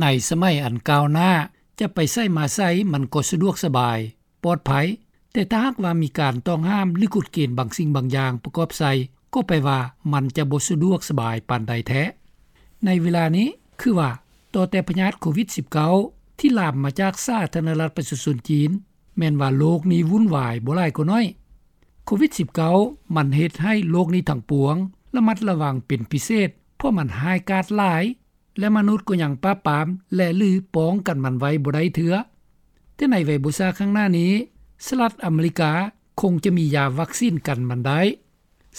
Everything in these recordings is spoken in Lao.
ໃນສະໄໝອັນກ້າວໜ້າ ຈະໄປໃສມາໃສມັນກໍສະດວກສະບາຍ, ປອດໄພ, ແຕ່ຖ້າຫາກວ່າມີການຕ້ອງຫ້າມ ຫຼື ກົດເກນບາງສິ່ງບາງຢ່າງປະກອບໃສ່ ກໍແປວ່າມັນຈະບໍ່ສະດວກສະບາຍປານໃດແທ້. ໃນເວລານີ້ ຄືວ່າ ຕໍ່ແຕ່ພະຍາດໂຄວິດສິບເກົ້າ ທີ່ລາມມາຈາກສາທາລະນະລັດປະຊາຊົນຈີນ ແມ່ນວ່າໂລກນີ້ວຸ້ນວາຍບໍ່ຫຼາຍກໍໜ້ອຍ. ໂຄວິດສິບເກົ້າ ມັນເຮັດໃຫ້ໂລກນີ້ທັງປວງ ລະມັດລະວັງເປັນພິເສດ ເພາະມັນຮ້າຍກາດຫຼາຍ ແລະ ມະນຸດກໍຍັງປາບປາມ ແລະ ຫຼື ປ້ອງກັນມັນໄວ້ບໍ່ໄດ້ເທື່ອ. ແຕ່ໃນໄວບໍ່ຊ້າຂ້າງໜ້ານີ້ ສະຫະລັດອາເມລິກາຄົງຈະມີຢາວັກຊີນກັນມັນໄດ້.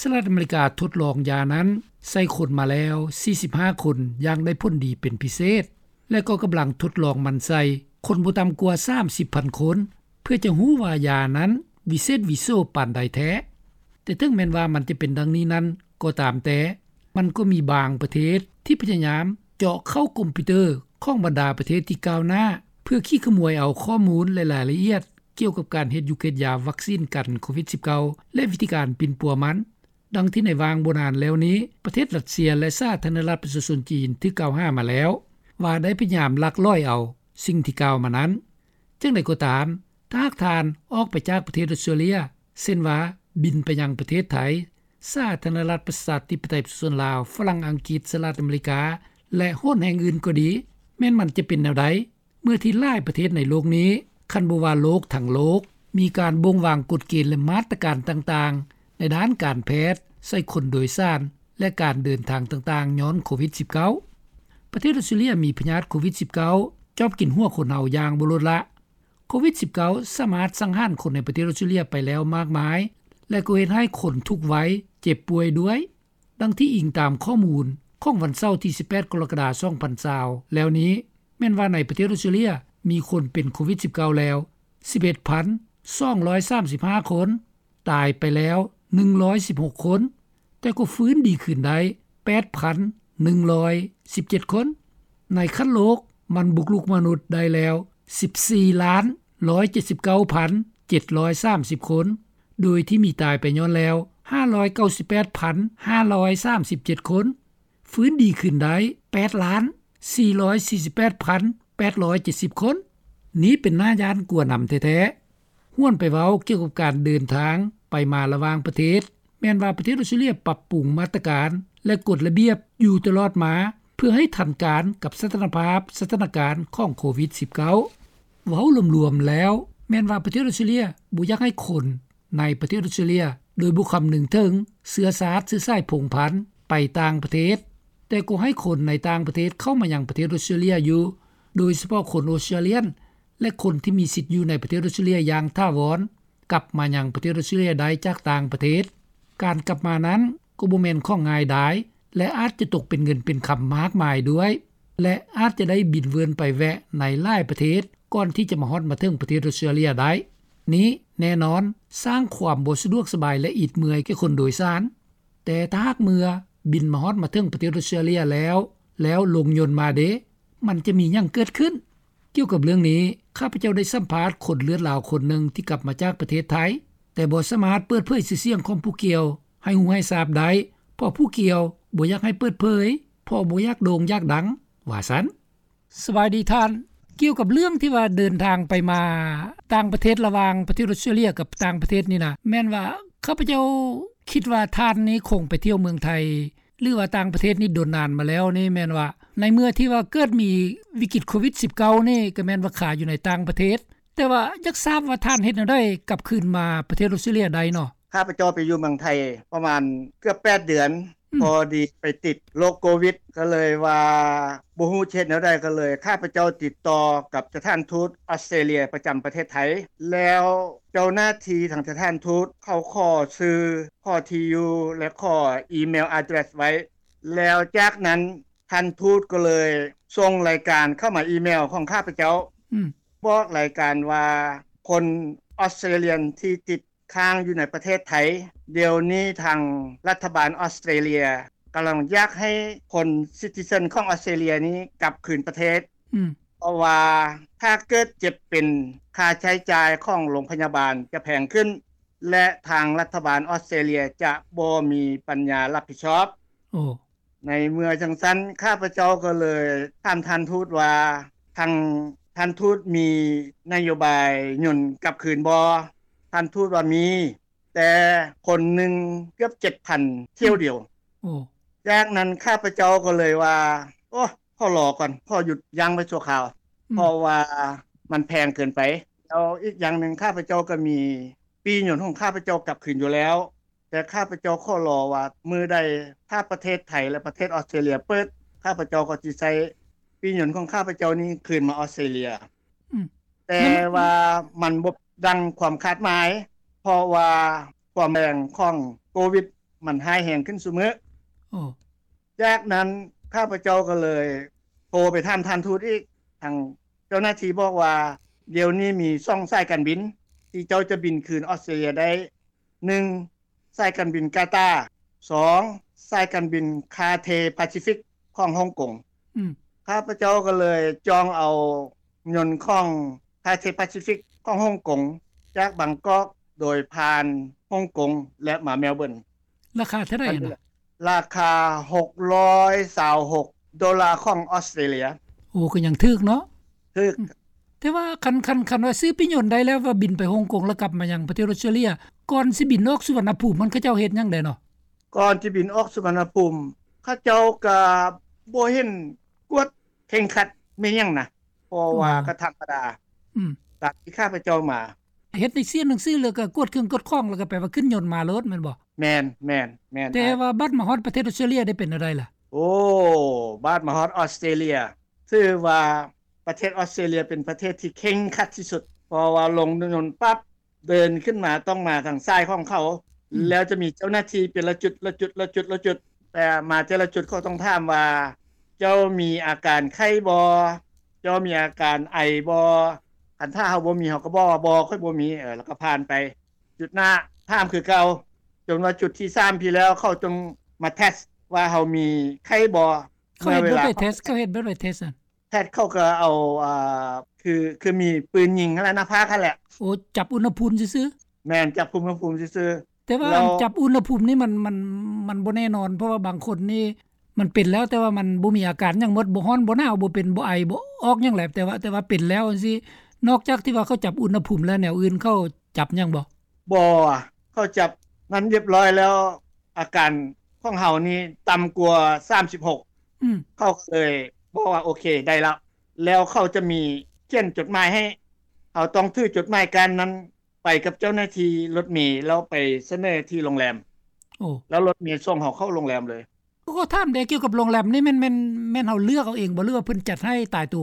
ສະຫະລັດອາເມລິກາທົດລອງຢານັ້ນໃສ່ຄົນມາແລ້ວສີ່ສິບຫ້າຄົນຢ່າງໄດ້ຜົນດີເປັນພິເສດ ແລະ ກໍກຳລັງທົດລອງມັນໃສ່ຄົນບໍ່ຕ່ຳກວ່າສາມສິບພັນຄົນ ເພື່ອຈະຮູ້ວ່າຢານັ້ນວິເສດວິໂສປານໃດແທ້. ແຕ່ເຖິງແມ່ນວ່າມັນຈະເປັນດັ່ງນີ້ນັ້ນກໍຕາມແຕ່, ມັນກໍມີບາງປະເທດທີ່ພະຍາຍາມເຈາະເຂົ້າຄອມພິວເຕີຂອງບັນດາປະເທດທີ່ກ້າວໜ້າ ເພື່ອຂີ້ຂະໝວຍເອົາຂໍ້ມູນ ແລະ ລາຍລະອຽດກ່ຽວກັບການເຮັດຢູ່ເຮັດຢາວັກຊີນກັນໂຄວິດສິບເກົ້າ ແລະ ວິທີການປິ່ນປົວມັນ. ດັ່ງທີ່ໃນຫວ່າງບໍ່ນານແລ້ວນີ້ ປະເທດຣັດເຊຍ ແລະ ສາທາລະນະລັດປະຊາຊົນຈີນຖືກກ່າວຫາມາແລ້ວ ວ່າໄດ້ພະຍາຍາມລັກລອຍເອົາສິ່ງທີ່ກ່າວມານັ້ນ. ຈັ່ງໃດກໍຕາມ, ຖ້າຫາກທ່ານອອກໄປຈາກປະເທດອົດສະຕຣາເລຍ ເຊັ່ນວ່າ ບິນໄປຍັງປະເທດໄທ, ສາທາລະນະລັດປະຊາທິປະໄຕປະຊາຊົນລາວ, ຝຣັ່ງ, ອັງກິດ, ສະຫະລັດອາເມລິກາ ແລະ ໂຫນແຫ່ງອື່ນກໍດີ, ແມ່ນມັນຈະເປັນແນວໃດ? ເມື່ອທີ່ຫຼາຍປະເທດໃນໂລກນີ້, ຄັນບໍ່ວ່າໂລກທັງໂລກ, ມີການບົ່ງວາງກົດເກນ ແລະ ມາດຕະການຕ່າງໆ ໃນດ້ານການແພດ ໃສ່ຄົນໂດຍສານ ແລະ ການເດີນທາງຕ່າງໆ ຍ້ອນໂຄວິດສິບເກົ້າ. ປະເທດອົດສະຕຣາເລຍມີພະຍາດໂຄວິດສິບເກົ້າ ຈອບກິນຫົວຄົນເຮົາຢ່າງບໍ່ລົດລະ. ໂຄວິດສິບເກົ້າ ສາມາດສັງຫານຄົນໃນປະເທດອົດສະຕຣາເລຍໄປແລ້ວມາກມາຍ ແລະ ກໍເຮັດໃຫ້ຄົນທຸກໄວເຈັບປ່ວຍດ້ວຍ. ດັ່ງທີ່ອີງຕາມຂໍ້ມູນຂອງວັນເສົາທີສິບແປດ ກໍລະກະດາ ສອງພັນຊາວ ແລ້ວນີ້ ແມ່ນວ່າໃນປະເທດອົດສະຕຣາເລຍ ມີຄົນເປັນໂຄວິດສິບເກົ້າແລ້ວສິບເອັດພັນສອງຮ້ອຍສາມສິບຫ້າຄົນ, ຕາຍໄປແລ້ວໜຶ່ງຮ້ອຍສິບຫົກຄົນ, ແຕ່ກໍຟື້ນດີຄືນໄດ້ແປດພັນໜຶ່ງຮ້ອຍສິບເຈັດຄົນ. ໃນຂັ້ນໂລກ ມັນບຸກລຸກມະນຸດໄດ້ແລ້ວສິບສີ່ລ້ານຮ້ອຍເຈັດສິບເກົ້າພັນເຈັດຮ້ອຍສາມສິບຄົນ, ໂດຍທີ່ມີຕາຍໄປຍ້ອນແລ້ວຫ້າຮ້ອຍເກົ້າສິບແປດພັນຫ້າຮ້ອຍສາມສິບເຈັດຄົນ, ຟື້ນດີຂຶ້ນໄດ້ແປດລ້ານສີ່ຮ້ອຍສີ່ສິບແປດພັນແປດຮ້ອຍເຈັດສິບຄົນ. ນີ້ເປັນໜ້າຢ້ານກົວນຳແທ້ໆ. ຫວນໄປເວົ້າກ່ຽວກັບການເດີນທາງໄປມາລະຫວ່າງປະເທດ, ແມ່ນວ່າປະເທດອົດສະຕຣາເລຍປັບປຸງມາດຕະການ ແລະ ກົດລະບຽບຢູ່ຕະຫຼອດມາ ເພື່ອໃຫ້ທັນການກັບສະຖານະພາບສະຖານະການຂອງໂຄວິດສິບເກົ້າ. ເວົ້າລວມໆແລ້ວ ແມ່ນວ່າປະເທດອົດສະຕຣາເລຍບໍ່ຢາກໃຫ້ຄົນໃນປະເທດອົດສະຕຣາເລຍ ໂດຍບໍ່ຄຳນຶງເຖິງເຊື້ອຊາດເຊື້ອສາຍພົງພັນໄປຕ່າງປະເທດ, ແຕ່ກໍໃຫ້ຄົນໃນຕ່າງປະເທດເຂົ້າມາຍັງປະເທດອົດສະຕຣາເລຍຢູ່, ໂດຍສະເພາະຄົນອົດສະຕຣາລຽນ ແລະ ຄົນທີ່ມີສິດຢູ່ໃນປະເທດອົດສະຕຣາເລຍຢ່າງຖາວອນ ກັບມາຍັງປະເທດອົດສະຕຣາເລຍໄດ້ຈາກຕ່າງປະເທດ. ການກັບມານັ້ນກໍບໍ່ແມ່ນຂອງງ່າຍດາຍ ແລະ ອາດຈະຕົກເປັນເງິນເປັນຄຳມາກມາຍດ້ວຍ ແລະ ອາດຈະໄດ້ບິນເວີນໄປແວະໃນຫຼາຍປະເທດ ກ່ອນທີ່ຈະມາຮອດມາເຖິງປະເທດອົດສະຕຣາເລຍໄດ້. ນີ້ແນ່ນອນສ້າງຄວາມບໍ່ສະດວກສະບາຍ ແລະ ອິດເມື່ອຍແກ່ຄົນໂດຍສານ. ແຕ່ຖ້າຫາກເມື່ອບິນມາຮອດມາເຖິງປະເທດອົດສະຕຣາເລຍແລ້ວ, ແລ້ວລົງຍົນມາເດ? ມັນຈະມີຫຍັງເກີດຂຶ້ນ? ກ່ຽວກັບເລື່ອງນີ້, ຂ້າພະເຈົ້າໄດ້ສຳພາດຄົນເລືອດລາວຄົນໜຶ່ງທີ່ກັບມາຈາກປະເທດໄທ, ແຕ່ບໍ່ສາມາດເປີດເຜີຍຊື່ສຽງຂອງຜູ້ກ່ຽວໃຫ້ຮູ້ໃຫ້ຊາບໄດ້, ເພາະຜູ້ກ່ຽວບໍ່ຢາກໃຫ້ເປີດເຜີຍ, ເພາະບໍ່ຢາກໂດ່ງຢາກດັງ, ວ່າຊັ້ນ. ສະບາຍດີທ່ານ, ກ່ຽວກັບເລື່ອງທີ່ວ່າເດີນທາງໄປມາຕ່າງປະເທດລະຫວ່າງປະເທດອົດສະຕຣາເລຍກັບຕ່າງປະເທດນີ້ນະ, ແມ່ນວ່າຂ້າພະເຈົ້າຄິດວ່າທ່ານນີ້ຄົງໄປທ່ຽວເມືອງໄທ ຫຼືວ່າຕ່າງປະເທດນີ້ດົນນານມາແລ້ວນີ້ ແມ່ນວ່າໃນເມື່ອທີ່ວ່າເກີດມີວິກິດໂຄວິດສິບເກົ້ານີ້ ກໍແມ່ນວ່າຄາຢູ່ໃນຕ່າງປະເທດ, ແຕ່ວ່າຢາກຊາບວ່າທ່ານເຮັດແນວໃດກັບຄືນມາປະເທດອົດສະຕຣາເລຍໄດ້ເນາະ? ຂ້າພະເຈົ້າໄປຢູ່ເມືອງໄທປະມານເກືອບແປດເດືອນ, ອືມ ພໍດີໄປຕິດໂລກໂຄວິດ ກໍເລີຍວ່າບໍ່ຮູ້ຈະເຮັດແນວໃດ, ກໍເລີຍຂ້າພະເຈົ້າຕິດຕໍ່ກັບສະຖານທູດອອສເຕຣເລຍປະຈຳປະເທດໄທ, ແລ້ວເຈົ້າໜ້າທີ່ທາງສະຖານທູດເຂົາຂໍຊື່ ຂໍທີ່ຢູ່ ແລະ ຂໍອີເມວອາເດຣສໄວ້, ແລ້ວຈາກນັ້ນທ່ານທູດກໍເລີຍສົ່ງລາຍການເຂົ້າມາອີເມວຂອງຂ້າພະເຈົ້າ, ອືມ ບອກລາຍການວ່າຄົນອອສເຕຣເລຍນທີ່ຕິດ ຄ້າງຢູ່ໃນປະເທດໄທ, ດຽວນີ້ທາງລັດຖະບານອອສເຕຣເລຍກຳລັງຢາກໃຫ້ຄົນຊິຕິເຊິນຂອງອອສເຕຣເລຍນີ້ກັບຄືນປະເທດ, ອືມ ເພາະວ່າຖ້າເກີດເຈັບເປັນ, ຄ່າໃຊ້ຈ່າຍຂອງໂລງພະຍາບານຈະແພງຂຶ້ນ ແລະ ທາງລັດຖະບານອອສເຕຣເລຍຈະບໍ່ມີປັນຍາຮັບຜິດຊອບ. ໂອ້ ໃນເມື່ອຈັ່ງຊັ້ນ ຂ້າພະເຈົ້າກໍເລີຍຖາມທ່ານທູດວ່າ ທາງທ່ານທູດມີນະໂຍບາຍຍົນກັບຄືນບໍ່? ທ່ານທູດວ່າມີ ແຕ່ຄົນໜຶ່ງເກືອບເຈັດພັນຖ້ຽວດຽວ. ໂອ້ ຈາກນັ້ນຂ້າພະເຈົ້າກໍເລີຍວ່າ ໂອ້ ຂໍລໍກ່ອນ ຂໍຢຸດຢັ້ງໄວ້ຊົ່ວຄາວ ອືມ ເພາະວ່າມັນແພງເກີນໄປ. ແລ້ວອີກຢ່າງໜຶ່ງ ຂ້າພະເຈົ້າກໍມີປີ້ຍົນຂອງຂ້າພະເຈົ້າກັບຄືນຢູ່ແລ້ວ ແຕ່ຂ້າພະເຈົ້າຂໍລໍວ່າ ມື້ໃດຖ້າປະເທດໄທ ແລະ ປະເທດອອສເຕຣເລຍເປີດ ຂ້າພະເຈົ້າກໍຊິໃຊ້ປີ້ຍົນຂອງຂ້າພະເຈົ້ານີ້ຄືນມາອອສເຕຣເລຍ. ອືມ ແຕ່ວ່າມັນບໍ່ດັງຄວາມຄາດໝາຍ ເພາະວ່າຄວາມແຮງຂອງໂຄວິດມັນຮ້າຍແຮງຂຶ້ນຊຸມື້. ໂອ້ ຈາກນັ້ນຂ້າພະເຈົ້າກໍເລີຍໂທໄປຖາມທ່ານທູດອີກ ທາງເຈົ້າໜ້າທີ່ບອກວ່າ ດຽວນີ້ມີສອງສາຍການບິນທີ່ເຈົ້າຈະບິນຄືນອອສເຕຣເລຍໄດ້ ໜຶ່ງ ສາຍການບິນກາຕາ ສອງ ສາຍການບິນຄາເທປາຊີຟິກຂອງຮົງກົງ. ອືມ ຂ້າພະເຈົ້າກໍເລີຍຈອງເອົາຍົນຂອງຄາເທປາຊີຟິກຂອງຮົງກົງ ຈາກບາງກອກໂດຍຜ່ານຮົງກົງ ແລະ ມາແມລເບີນ. ລາຄາເທົ່າໃດຫັ້ນນະ? ລາຄາຫົກຮ້ອຍຊາວຫົກໂດລາຂອງອອສເຕຣເລຍ. ໂອ້ ກໍຍັງຖືກເນາະ. ຖືກ. ອືມ ແຕ່ວ່າຄັນ ຄັນ ຄັນວ່າຊື້ປີ້ຍົນໄດ້ແລ້ວ ວ່າບິນໄປຮົງກົງ ແລ້ວກັບມາຍັງປະເທດອອສເຕຣເລຍ ກ່ອນຊິບິນອອກສຸວັນນະພູມ ມັນເຂົາເຈົ້າເຮັດຫຍັງແດ່ເນາະ? ກ່ອນຊິບິນອອກສຸວັນນະພູມ ເຂົາເຈົ້າກໍບໍ່ເຫັນກວດເຄັ່ງຄັດແມ່ນຫຍັງນະ ເພາະວ່າ ອໍ ກໍທຳມະດາ. ອືມ ຕາມທີ່ຂ້າພະເຈົ້າມາ ເຮັດໃນເສຍໜັງສື ແລ້ວກໍກວດເຄື່ອງກວດຂອງ ແລ້ວກໍແປວ່າຂຶ້ນຍົນມາໂລດແມ່ນບໍ່? ແມ່ນ ແມ່ນ ແມ່ນ. ແຕ່ວ່າບັດມາຮອດປະເທດອອສເຕຣເລຍໄດ້ເປັນແນວໃດລະ? ໂອ້ ບັດມາຮອດອອສເຕຣເລຍ ຖືວ່າປະເທດອອສເຕຣເລຍເປັນປະເທດທີ່ເຄັ່ງຄັດທີ່ສຸດ ເພາະວ່າລົງຍົນປັບ ເດີນຂຶ້ນມາຕ້ອງມາທາງສາຍຂອງເຂົາ ອືມ ແລ້ວຈະມີເຈົ້າໜ້າທີ່ເປັນລະຈຸດ ລະຈຸດ ລະຈຸດ ລະຈຸດ ແຕ່ມາແຕ່ລະຈຸດເຂົາຕ້ອງຖາມວ່າ ເຈົ້າມີອາການໄຂ້ບໍ່? ເຈົ້າມີອາການໄອບໍ່? ຄັນຖ້າເຮົາບໍ່ມີ ເຮົາກໍບອກວ່າ ບໍ່ ຂ້ອຍບໍ່ມີ ເອີ ແລ້ວກໍຜ່ານໄປຈຸດໜ້າ ຖາມຄືເກົ່າ ຈົນວ່າຈຸດທີສາມພີ້ແລ້ວ ເຂົາຈຶ່ງມາເທສວ່າເຮົາມີໄຂ້ບໍ່. ເຂົາເຮັດແບບໃດເທສ? ເຂົາເຮັດແບບໃດເທສ? ແພດເຂົາກໍເອົາ ອ່າ ຄື ຄືມີປືນຍິງຫັ້ນແຫຼະ ໜ້າຜາກຫັ້ນແຫຼະ. ໂອ້ ຈັບອຸນຫະພູມຊື່ໆ? ແມ່ນ ຈັບອຸນຫະພູມຊື່ໆ. ແຕ່ວ່າ ແລ້ວ ອັນຈັບອຸນຫະພູມນີ້ມັນ ມັນ ມັນບໍ່ແນ່ນອນ ເພາະວ່າບາງຄົນນີ້ມັນເປັນແລ້ວ ແຕ່ວ່າມັນບໍ່ມີອາການຫຍັງໝົດ ບໍ່ຮ້ອນ ບໍ່ໜາວ ບໍ່ເປັນ ບໍ່ໄອ ບໍ່ອອກຫຍັງແຫຼະ ແຕ່ວ່າ ແຕ່ວ່າເປັນແລ້ວຈັ່ງຊີ້ ນອກຈາກທີ່ວ່າເຂົາຈັບອຸນຫະພູມແລ້ວ ແນວອື່ນເຂົາຈັບຫຍັງບໍ່? ບໍ່ ເຂົາຈັບນັ້ນຮຽບຮ້ອຍແລ້ວ ອາການຂອງເຮົານີ້ຕ່ຳກວ່າສາມສິບຫົກ ອືມ ເຂົາກໍເລີຍບອກວ່າ ໂອເຄ ໄດ້ແລ້ວ ແລ້ວເຂົາຈະມີຂຽນຈົດໝາຍໃຫ້ ເຮົາຕ້ອງຖືຈົດໝາຍກ້ານນັ້ນໄປກັບເຈົ້າໜ້າທີ່ລົດເມ ແລ້ວໄປສະເໜີທີ່ໂຮງແຮມ. ໂອ້ ແລ້ວລົດເມສົ່ງເຮົາເຂົ້າໂຮງແຮມເລີຍ. ກໍຖາມແດ່ ກ່ຽວກັບໂຮງແຮມນີ້ ແມ່ນ ແມ່ນ ແມ່ນເຮົາເລືອກເອົາເອງບໍ່ ຫຼືວ່າເພິ່ນຈັດໃຫ້ຕາຍໂຕ?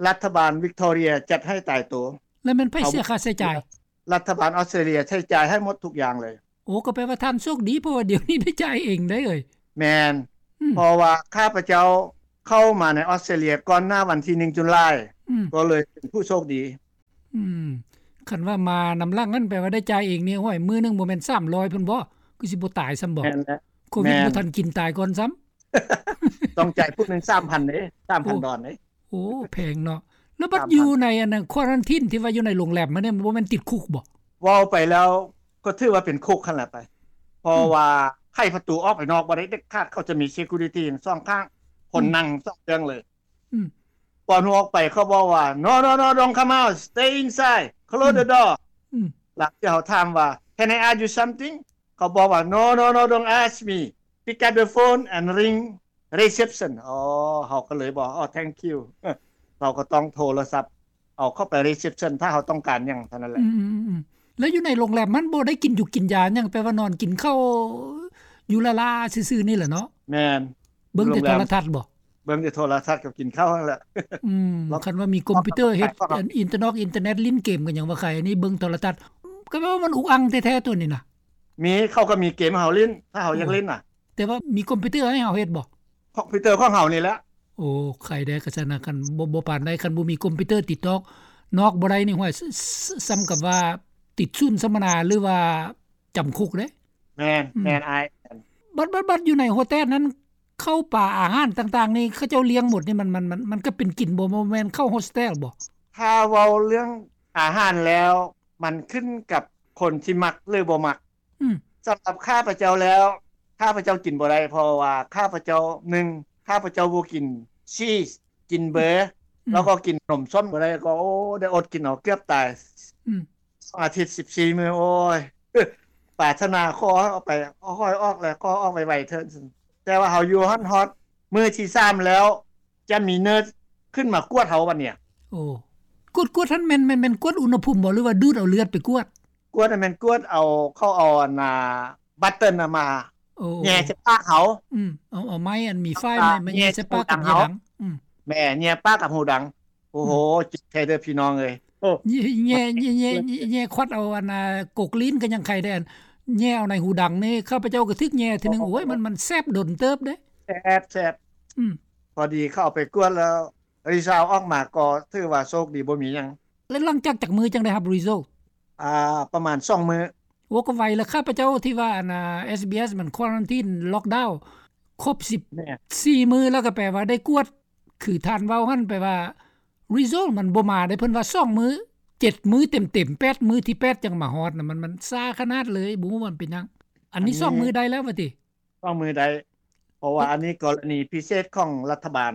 ລັດຖະບານວິກຕໍເຣຍຈັດໃຫ້ຕາຍໂຕ. ແລ້ວແມ່ນໃຜເສຍຄ່າໃຊ້ຈ່າຍ? ລັດຖະບານອອສເຕຣເລຍໃຊ້ຈ່າຍໃຫ້ໝົດທຸກຢ່າງເລີຍ. ໂອ້ ກໍແປວ່າທ່ານໂຊກດີ ເພາະວ່າດຽວນີ້ໄດ້ຈ່າຍເອງໄດ໋ເອີຍ. ແມ່ນ ອືມ ເພາະວ່າຂ້າພະເຈົ້າເຂົ້າມາໃນອອສເຕຣເລຍກ່ອນໜ້າວັນທີໜຶ່ງ ຈຸລາຍ ອືມ ກໍເລີຍເປັນຜູ້ໂຊກດີ. ອືມ ຄັນວ່າມານຳຫຼັງນັ້ນ ແປວ່າໄດ້ຈ່າຍເອງນີ້ ໂອ້ຍ ມື້ໜຶ່ງບໍ່ແມ່ນສາມຮ້ອຍພຸ້ນບໍ? ຄືຊິບໍ່ຕາຍຊ້ຳບໍ? ແມ່ນແຫຼະ ໂຄວິດ ແມ່ນ ບໍ່ທັນກິນຕາຍກ່ອນຊ້ຳ. ຕ້ອງຈ່າຍຜູ້ໜຶ່ງສາມພັນເດ້ ສາມພັນດອນເດ້. ໂອ້ ແພງເນາະ. ແລ້ວບັດຢູ່ໃນອັນນັ້ນ ຄວາຣັນທີນ ທີ່ວ່າຢູ່ໃນໂຮງແຮມຫັ້ນນີ້ ມັນບໍ່ແມ່ນຕິດຄຸກບໍ? ເວົ້າໄປແລ້ວກໍຖືວ່າເປັນຄຸກຫັ້ນແຫຼະໄປ ເພາະ ອືມ ວ່າໄຂປະຕູອອກໄປນອກບໍ່ໄດ້ເດັດຂາດ ເຂົາຈະມີເຊັກກູຣິຕີສອງຂ້າງ ຄົນ ອືມ ນັ່ງສອງເບື້ອງເລີຍ. ອືມ ກ່ອນອອກໄປເຂົາບອກວ່າ No, no, no, don't come out, stay inside, close the door. ອືມ ຫຼັງຈາກເຮົາຖາມວ່າ Can I ask you something? ເຂົາບອກວ່າ No, no, no, don't ask me. Pick up the phone and ring reception. ອໍ ເຮົາກໍເລີຍບອກ ອໍ thank you. ເຮົາກໍຕ້ອງໂທລະສັບເອົາເຂົ້າໄປ reception ຖ້າເຮົາຕ້ອງການຫຍັງເທົ່ານັ້ນແຫຼະ. ອືມໆໆ ແລ້ວຢູ່ໃນໂຮງແຮມມັນບໍ່ໄດ້ກິນຢູ່ກິນຢາຫຍັງ ແປວ່ານອນກິນເຂົ້າຢູ່ລ້າໆຊື່ໆນີ້ແຫຼະເນາະ? ແມ່ນ. ເບິ່ງແຕ່ໂທລະທັດບໍ? ເບິ່ງແຕ່ໂທລະທັດກັບກິນເຂົ້າຫັ້ນແຫຼະ. ອືມ ຄັນວ່າມີຄອມພິວເຕີເຮັດ ອິນເຕີນອກອິນເຕີເນັດ ຫຼິ້ນເກມກັນຫຍັງວ່າໄຄ ອັນນີ້ເບິ່ງໂທລະທັດ ກໍແປວ່າມັນອຸກອັ່ງແທ້ໆ ໂຕນີ້ນະ. ມີ ເຂົາກໍມີເກມໃຫ້ເຮົາຫຼິ້ນ ຖ້າເຮົາຢາກຫຼິ້ນນະ. ໂອ້ ແຕ່ວ່າມີຄອມພິວເຕີໃຫ້ເຮົາເຮັດບໍ? ຄອມພິວເຕີຂອງເຮົານີ້ແຫຼະ. ໂອ້ ໄຄແດ່ ຄັນຊັ້ນນະ ຄັນບໍ່ ບໍ່ປານໃດ ຄັນບໍ່ມີຄອມພິວເຕີຕິດອອກນອກບໍ່ໄດ້ນີ້ ຫ້ວຍ ສ່ຳກັບວ່າຕິດສູນສຳມະນາ ຫຼືວ່າຈຳຄຸກເດ້. ແມ່ນ ອືມ ແມ່ນອ້າຍ. ບັດ ບັດ ບັດຢູ່ໃນໂຮສເທລນັ້ນ ເຂົ້າປາອາຫານຕ່າງໆນີ້ ເຂົາເຈົ້າລ້ຽງໝົດນີ້ ມັນ ມັນ ມັນ ມັນກໍເປັນກິນບໍ່ ບໍ່ແມ່ນເຂົ້າໂຮສເທລບໍ? ຖ້າເວົ້າເລື່ອງອາຫານແລ້ວ ມັນຂຶ້ນກັບຄົນທີ່ມັກ ຫຼື ບໍ່ມັກ. ອືມ ສຳລັບຂ້າພະເຈົ້າແລ້ວ ຖ້ ຂ້າພະເຈົ້າກິນບໍ່ໄດ້ ເພາະວ່າຂ້າພະເຈົ້າ ໜຶ່ງ ຂ້າພະເຈົ້າບໍ່ກິນຊີສ ກິນເບີ ອືມ ແລ້ວກໍກິນໜົມສົ້ມບໍ່ໄດ້ ກໍ ໂອ້ ໄດ້ອົດກິນເອົາເກືອບຕາຍ ອືມ ສອງອາທິດ ສິບສີ່ມື້ ໂອ້ຍ ປາດຖະໜາຂໍໃຫ້ອອກໄປ ຂໍໃຫ້ອອກແລ້ວ ຂໍອອກໄວໆເທີ້ນ ແຕ່ວ່າເຮົາຢູ່ຫັ້ນຮອດມື້ທີສາມແລ້ວ ຈະມີເນີສຂຶ້ນມາກວດເຮົາບັດນີ້. ໂອ້ ກວດ ກວດຫັ້ນແມ່ນ ແມ່ນ ແມ່ນກວດອຸນຫະພູມບໍ່ ຫຼືວ່າດູດເອົາເລືອດໄປກວດ? ກວດຫັ້ນແມ່ນກວດເອົາ ເຂົາເອົາອັນນ່າ ບັດເຕີນນະມາ ໂອ້ ແຍ່ໃສ່ປາກເຮົາ ອືມ ເອົາ ເອົາໄມ້ອັນມີຝ້າຍ ມາ ມາແຍ່ໃສ່ປາກກັບເຫຍື່ອດັງ ອືມ ແມ່ນ ແຍ່ປາກກັບຫູດັງ ໂອ້ໂຫ ອືມ ເຈັບແທ້ເດີພີ່ນ້ອງເອີຍ ໂອ້ ແຍ່ ແຍ່ ແຍ່ ແຍ່ຄວັດເອົາອັນນ່າ ກົກລີ້ນກໍຍັງໄຄໄດ້ ອັນແຍ່ເອົາໃນຫູດັງນີ້ ຂ້າພະເຈົ້າກໍຖືກແຍ່ເທື່ອໜຶ່ງ ໂອ້ຍ ໂອ້ ມັນ ມັນແສບດົນເຕີບເດ້ ແສບ ແສບ ອືມ ພໍດີເຂົາເອົາໄປກວດແລ້ວ ຣີຊາວອອກມາກໍຖືວ່າໂຊກດີບໍ່ມີຫຍັງ. ແລ້ວຫຼັງຈາກຈັກມື້ຈັ່ງໄດ້ຮັບຣີໂຊ? ອ່າ ປະມານສອງມື້. ໂອ້ ກໍໄວລະ ຂ້າພະເຈົ້າທີ່ວ່າອັນນ່າ ເອສບີເອສ ມັນຄວາຣັນທີນ ລັອກດາວ ຄົບສິບ ແມ່ນ ສີ່ມື້ ແລ້ວກໍແປວ່າໄດ້ກວດ ຄືທ່ານເວົ້າຫັ້ນ ແປວ່າຣີໂຊມັນບໍ່ມາໄດ້ ເພິ່ນວ່າສອງມື້ ເຈັດມື້ເຕັມໆ ແປດມື້ ທີແປດຈັ່ງມາຮອດນະ ມັນ ມັນຊ້າຂະໜາດເລີຍ ບໍ່ຮູ້ວ່າມັນເປັນຫຍັງ ອັນນີ້ ອັນນີ້ສອງມື້ໄດ້ແລ້ວວ່າຕິ? ສອງມື້ໄດ້ ເພາະວ່າ ເອີ ອັນນີ້ກໍລະນີພິເສດຂອງລັດຖະບານ.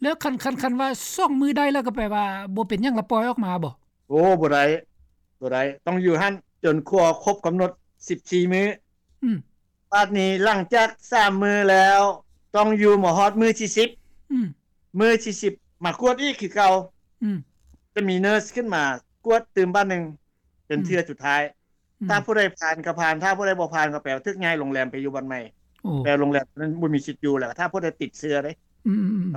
ແລ້ວຄັນ ຄັນ ຄັນວ່າສອງມື້ໄດ້ແລ້ວ ກໍແປວ່າບໍ່ເປັນຫຍັງ ລະປ່ອຍອອກມາບໍ່? ໂອ້ ບໍ່ໄດ້ ບໍ່ໄດ້ ຕ້ອງຢູ່ຫັ້ນຈົນກວ່າຄົບກຳນົດສິບສີ່ມື້. ອືມ ບາດນີ້ຫຼັງຈາກສາມມື້ແລ້ວ ຕ້ອງຢູ່ມາຮອດມື້ທີສິບ. ອືມ ມື້ທີສິບມາກວດອີກຄືເກົ່າ. ອືມ ຈະມີເນີສຂຶ້ນມາກວດຕື່ມບາດໜຶ່ງ ເປັນເທື່ອສຸດທ້າຍ. ອືມ ຖ້າຜູ້ໃດຜ່ານກໍຜ່ານ ຖ້າຜູ້ໃດບໍ່ຜ່ານກໍແປວ່າຖືກຍ້າຍໂຮງແຮມໄປຢູ່ບ່ອນໃໝ່. ໂອ້ ແປວ່າໂຮງແຮມນັ້ນບໍ່ມີສິດຢູ່ແລ້ວ ຖ້າຜູ້ໃດຕິດເຊື້ອເດ້. ອືມໆ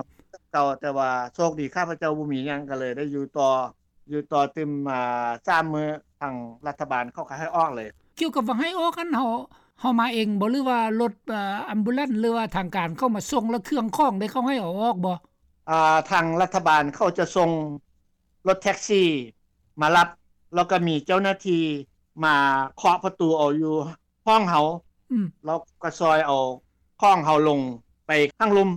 ເກົ່າ ແຕ່ວ່າໂຊກດີຂ້າພະເຈົ້າບໍ່ມີຫຍັງ ກໍເລີຍໄດ້ຢູ່ຕໍ່ ຢູ່ຕໍ່ຕື່ມ ອ່າ ສາມມື້ ທາງລັດຖະບານເຂົາກໍໃຫ້ອອກເລີຍ. ກ່ຽວກັບວ່າໃຫ້ອອກຫັ້ນ ເຮົາ ເຮົາມາເອງບໍ່ ຫຼືວ່າລົດ ອາ ແອມບູແລນ ຫຼືວ່າທາງການເຂົ້າມາສົ່ງ ແລ້ວເຄື່ອງຂອງເດ້ ເຂົາໃຫ້ເອົາອອກບໍ່? ອ່າ ທາງລັດຖະບານເຂົາຈະສົ່ງລົດແທັກຊີມາຮັບ ແລ້ວກໍມີເຈົ້າໜ້າທີ່ມາເຄາະປະຕູເອົາຢູ່ຫ້ອງເຮົາ. ອືມ ແລ້ວກໍຊ່ອຍເອົາຂອງເຮົາລົງໄປທາງລຸ່ມ.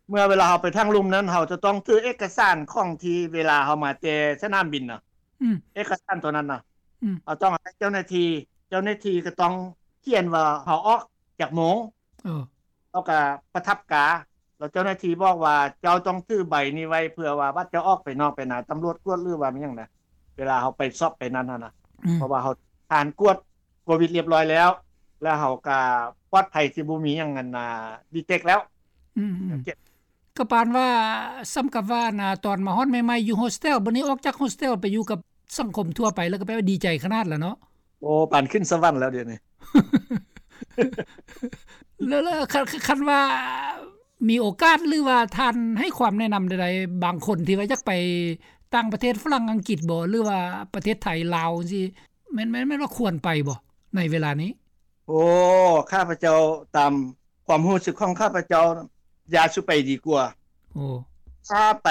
ເມື່ອເວລາເຮົາໄປທາງລຸ່ມນັ້ນ ເຮົາຈະຕ້ອງຖືເອກະສານຂອງທີ່ເວລາເຮົາມາແຕ່ສະໜາມບິນນະ. ອືມ ເອກະສານຕົວນັ້ນນະ ອືມ ເຮົາຕ້ອງໃຫ້ເຈົ້າໜ້າທີ່ ເຈົ້າໜ້າທີ່ກໍຕ້ອງຂຽນວ່າເຮົາອອກຈັກໂມງ. ເອີ ເຮົາກໍປະທັບກາ ແລ້ວເຈົ້າໜ້າທີ່ບອກວ່າ ເຈົ້າຕ້ອງຖືໃບນີ້ໄວ້ ເພື່ອວ່າບາດເຈົ້າອອກໄປນອກໄປນາ ຕຳຫຼວດກວດ ຫຼືວ່າມີຫຍັງນະ ເວລາເຮົາໄປສອບໄປນັ້ນຫັ້ນນະ. ອືມ ເພາະວ່າເຮົາຜ່ານກວດໂຄວິດລຽບຮ້ອຍແລ້ວ ແລ້ວເຮົາກໍປອດໄພ ທີ່ບໍ່ມີຫຍັງອັນນ່າ ດີເຕັກແລ້ວ. ອືມ ກໍປານວ່າ ສ່ຳກັບວ່າອັນນ່າ ຕອນມາຮອດໃໝ່ໆ ຢູ່ໂຮສເທວ ບັດນີ້ອອກຈາກໂຮສເທວໄປຢູ່ກັບສັງຄົມທົ່ວໄປ ແລ້ວກໍແປວ່າດີໃຈຂະໜາດລະເນາະ. ໂອ້ ປານຂຶ້ນສະຫວັນແລ້ວດຽວນີ້. ແລ້ວ ແລ້ວ ຄັນ ຄັນວ່າມີໂອກາດ ຫຼືວ່າທ່ານໃຫ້ຄວາມແນະນຳໃດໆ ບາງຄົນທີ່ວ່າຢາກໄປຕ່າງປະເທດ ຝຣັ່ງ ອັງກິດບໍ ຫຼືວ່າປະເທດໄທ ລາວ ຈັ່ງຊີ້ ແມ່ນ ແມ່ນ ແມ່ນວ່າຄວນໄປບໍ່ໃນເວລານີ້? ໂອ້ ຂ້າພະເຈົ້າ ຕາມຄວາມຮູ້ສຶກຂອງຂ້າພະເຈົ້າ ຢ່າສູ່ໄປດີກວ່າ. ໂອ້ ຖ້າໄປ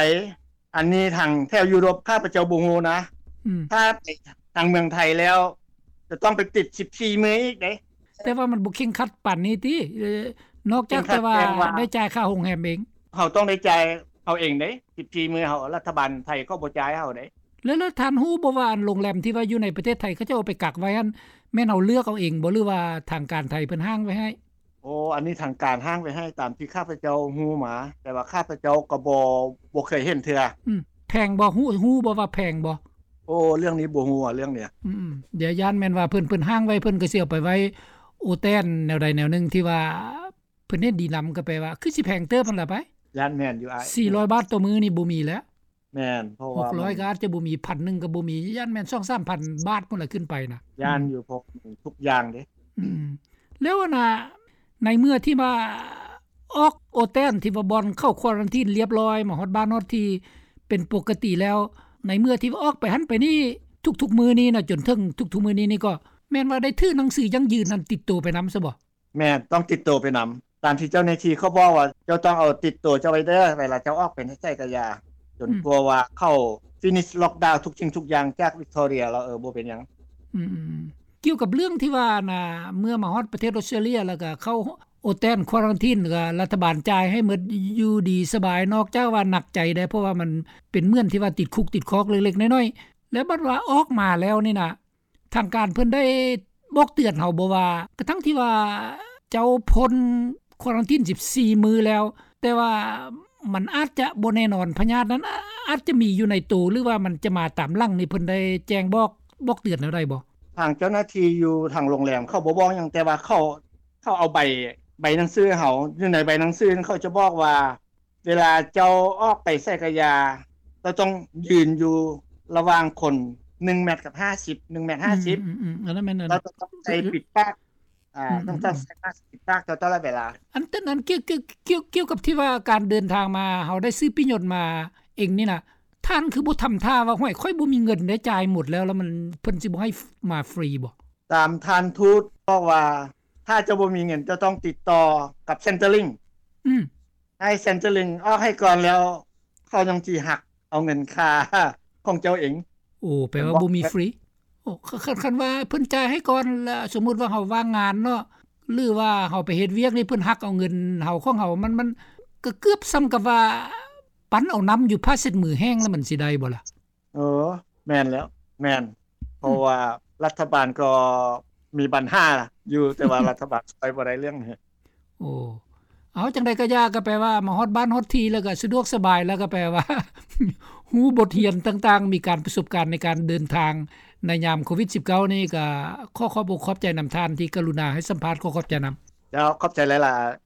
ອັນນີ້ທາງແຖວຢູໂຣບ ຂ້າພະເຈົ້າບໍ່ຮູ້ນະ. ອືມ ຖ້າໄປທາງເມືອງໄທແລ້ວ ຈະຕ້ອງໄປຕິດສິບສີ່ມື້ອີກເດ້. ແຕ່ວ່າມັນບໍ່ເຄັ່ງຄັດປານນີ້ຕິ? ເອີ ນອກຈາກແຕ່ວ່າ ເຄັ່ງຄັດແຕ່ວ່າ ໄດ້ຈ່າຍຄ່າໂຮງແຮມເອງ. ເຮົາຕ້ອງໄດ້ຈ່າຍເຮົາເອງເດ້ ສິບສີ່ມື້ ເຮົາ ລັດຖະບານໄທເຂົາບໍ່ຈ່າຍໃຫ້ເຮົາເດ້. ແລ້ວ ແລ້ວທ່ານຮູ້ບໍ່ວ່າ ອັນໂຮງແຮມທີ່ວ່າຢູ່ໃນປະເທດໄທ ເຂົາເຈົ້າເອົາໄປກັກໄວ້ຫັ້ນ ແມ່ນເຮົາເລືອກເອົາເອງບໍ່ ຫຼືວ່າທາງການໄທເພິ່ນຫ້າງໄວ້ໃຫ້? ໂອ້ ອັນນີ້ທາງການຫ້າງໄວ້ໃຫ້ ຕາມທີ່ຂ້າພະເຈົ້າຮູ້ມາ ແຕ່ວ່າຂ້າພະເຈົ້າກໍບໍ່ ບໍ່ເຄີຍເຫັນເທື່ອ. ອືມ ແພງບໍ່? ຮູ້ ຮູ້ບໍ່ວ່າແພງບໍ່? ໂອ້ ເລື່ອງນີ້ບໍ່ຮູ້ ເລື່ອງນີ້. ອືມ ດຽວຢ້ານແມ່ນວ່າເພິ່ນ ເພິ່ນຫ້າງໄວ້ ເພິ່ນກໍຊິເອົາໄປໄວ້ໂອແຕນແນວໃດແນວໜຶ່ງ ທີ່ວ່າເພິ່ນເຫັນດີນຳ ກໍແປວ່າຄືຊິແພງເຕີບຫັ້ນລະໄປ. ຢ້ານແມ່ນຢູ່ອ້າຍ ສີ່ຮ້ອຍບາດຕໍ່ມື້ນີ້ບໍ່ມີແລ້ວ. ແມ່ນ ເພາະວ່າຫົກຮ້ອຍກໍອາດຈະບໍ່ມີ ພັນໜຶ່ງກໍບໍ່ມີ ຢ້ານແມ່ນສອງສາມພັນບາດພຸ້ນລະຂຶ້ນໄປນະ. ຢ້ານຢູ່ ອືມ ເພາະທຸກຢ່າງເດ້. ອືມ ແລ້ວອັນນ່າ ໃນເມື່ອທີ່ວ່າອອກໂອແຕນ ທີ່ວ່າບ່ອນເຂົ້າຄວາຣັນທີນລຽບຮ້ອຍ ມາຮອດບ້ານຮອດທີ່ເປັນປົກກະຕິແລ້ວ ໃນເມື່ອທີ່ວ່າອອກໄປຫັ້ນໄປນີ້ ທຸກໆມື້ນີ້ນະ ຈົນເຖິງທຸກໆມື້ນີ້ນີ້ ກໍແມ່ນວ່າໄດ້ຖືໜັງສືຢັ້ງຢືນນັ້ນຕິດໂຕໄປນຳຊະບໍ່? ແມ່ນ ຕ້ອງຕິດໂຕໄປນຳ ຕາມທີ່ເຈົ້າໜ້າທີ່ເຂົາບອກວ່າ ເຈົ້າຕ້ອງເອົາຕິດໂຕເຈົ້າໄວ້ເດີ ເວລາເຈົ້າອອກໄປໃນໃສກະຢ່າ ຈົນ ອືມ ກວ່າວ່າເຂົາ finish lockdown ທຸກສິ່ງທຸກຢ່າງຈາກ Victoria ແລ້ວ ເອີ ບໍ່ເປັນຫຍັງ. ອືມ ກ່ຽວກັບເລື່ອງທີ່ວ່ານະ ເມື່ອມາຮອດປະເທດອອສເຕຣເລັຍ ແລ້ວກະເຂົ້າໂອແຕນຄວາຣັນທີນ ແລ້ວກະລັດຖະບານຈ່າຍໃຫ້ໝົດ ຢູ່ດີສະບາຍ ນອກຈາກວ່າໜັກໃຈໄດ໋ ເພາະວ່າມັນເປັນເໝືອນທີ່ວ່າຕິດຄຸກຕິດຄອກເລັກໆນ້ອຍໆ ແລ້ວບັດວ່າອອກມາແລ້ວນີ້ນະ ທາງການເພິ່ນໄດ້ບອກເຕືອນເຮົາບໍ່ວ່າ ກະທັ່ງທີ່ວ່າ ເຈົ້າພົ້ນຄວາຣັນທີນສິບສີ່ມື້ແລ້ວ, ແຕ່ວ່າມັນອາດຈະບໍ່ແນ່ນອນ ພະຍາດນັ້ນອາດຈະມີຢູ່ໃນໂຕ ຫຼືວ່າມັນຈະມາຕາມຫຼັງນີ້ ເພິ່ນໄດ້ແຈ້ງບອກ ບອກເຕືອນແນວໃດບໍ່? ທາງເຈົ້າໜ້າທີ່ຢູ່ທາງໂຮງແຮມເຂົາບໍ່ບອກຫຍັງ, ແຕ່ວ່າເຂົາ ເຂົາເອົາໃບ ໃບໜັງສືໃຫ້ເຮົາ. ຢູ່ໃນໃບໜັງສືນັ້ນເຂົາຈະບອກວ່າ ເວລາເຈົ້າອອກໄປໃສກະຢ່າ ເຈົ້າຕ້ອງຢືນຢູ່ລະຫວ່າງຄົນໜຶ່ງແມັດກັບຫ້າສິບ ໜຶ່ງແມັດຫ້າສິບ. ອືມໆໆ ອັນນັ້ນແມ່ນ ເຈົ້າຕ້ອງໃສ່ປິດປາກ ອືມໆໆ ອາ ຕ້ອງ ຕ້ອງໃສ່ມາສກປິດປາກເຈົ້າຕະຫຼອດເວລາ. ອັນ ອັນນັ້ນ ກ່ຽວ ກ່ຽວ ກ່ຽວ ກ່ຽວກັບທີ່ວ່າການເດີນທາງມາ ເຮົາໄດ້ຊື້ປີ້ຍົນມາເອງນີ້ນະ ທ່ານຄືບໍ່ທຳທ່າວ່າ ຫ້ວຍ ຂ້ອຍບໍ່ມີເງິນເດ້ ຈ່າຍໝົດແລ້ວ ແລ້ວມັນ ເພິ່ນຊິບໍ່ໃຫ້ມາຟຣີບໍ່? ຕາມທ່ານທູດບອກວ່າ ຖ້າເຈົ້າບໍ່ມີເງິນ ເຈົ້າຕ້ອງຕິດຕໍ່ກັບ Centrelink ອືມ ໃຫ້ Centrelink ອອກໃຫ້ກ່ອນ ແລ້ວເຂົາຍັງຊິຫັກເອົາເງິນຄ່າຂອງເຈົ້າເອງ. ໂອ້ ແປວ່າບໍ່ມີຟຣີ. ໂອ້ ຄັນ ຄັນວ່າເພິ່ນຈ່າຍໃຫ້ກ່ອນ ລະສົມມຸດວ່າເຮົາວ່າງງານເນາະ ຫຼືວ່າເຮົາໄປເຮັດວຽກນີ້ ເພິ່ນຫັກເອົາເງິນເຮົາ ຂອງເຮົາ ມັນ ມັນກະເກືອບສ່ຳກັບວ່າ ປັ້ນເອົານ້ຳຢູ່ຜ້າເຊັດມືແຫ້ງ ລະມັນຊິໄດ້ບໍ່ລະ? ເອີ ແມ່ນແລ້ວ ແມ່ນ ເພາະ ອືມ ວ່າລັດຖະບານກໍມີບັນຫາຢູ່ ແຕ່ວ່າລັດຖະບານຊ່ວຍບໍ່ໄດ້ເລື່ອງນີ້. ໂອ້ ເອົາ ຈັ່ງໃດກະຢ່າ ກະແປວ່າມາຮອດບ້ານຮອດທີ່ ແລ້ວກະສະດວກສະບາຍ ແລ້ວກະແປວ່າ ຮູ້ບົດຮຽນຕ່າງໆ ມີການປະສົບການໃນການເດີນທາງໃນຍາມໂຄວິດສິບເກົ້ານີ້ ກະຂໍຂອບອົກຂອບໃຈນຳທ່ານທີ່ກະລຸນາໃຫ້ສຳພາດ. ຂໍຂອບໃຈນຳ. ເຈົ້າ ຂອບໃຈຫຼາຍໆ.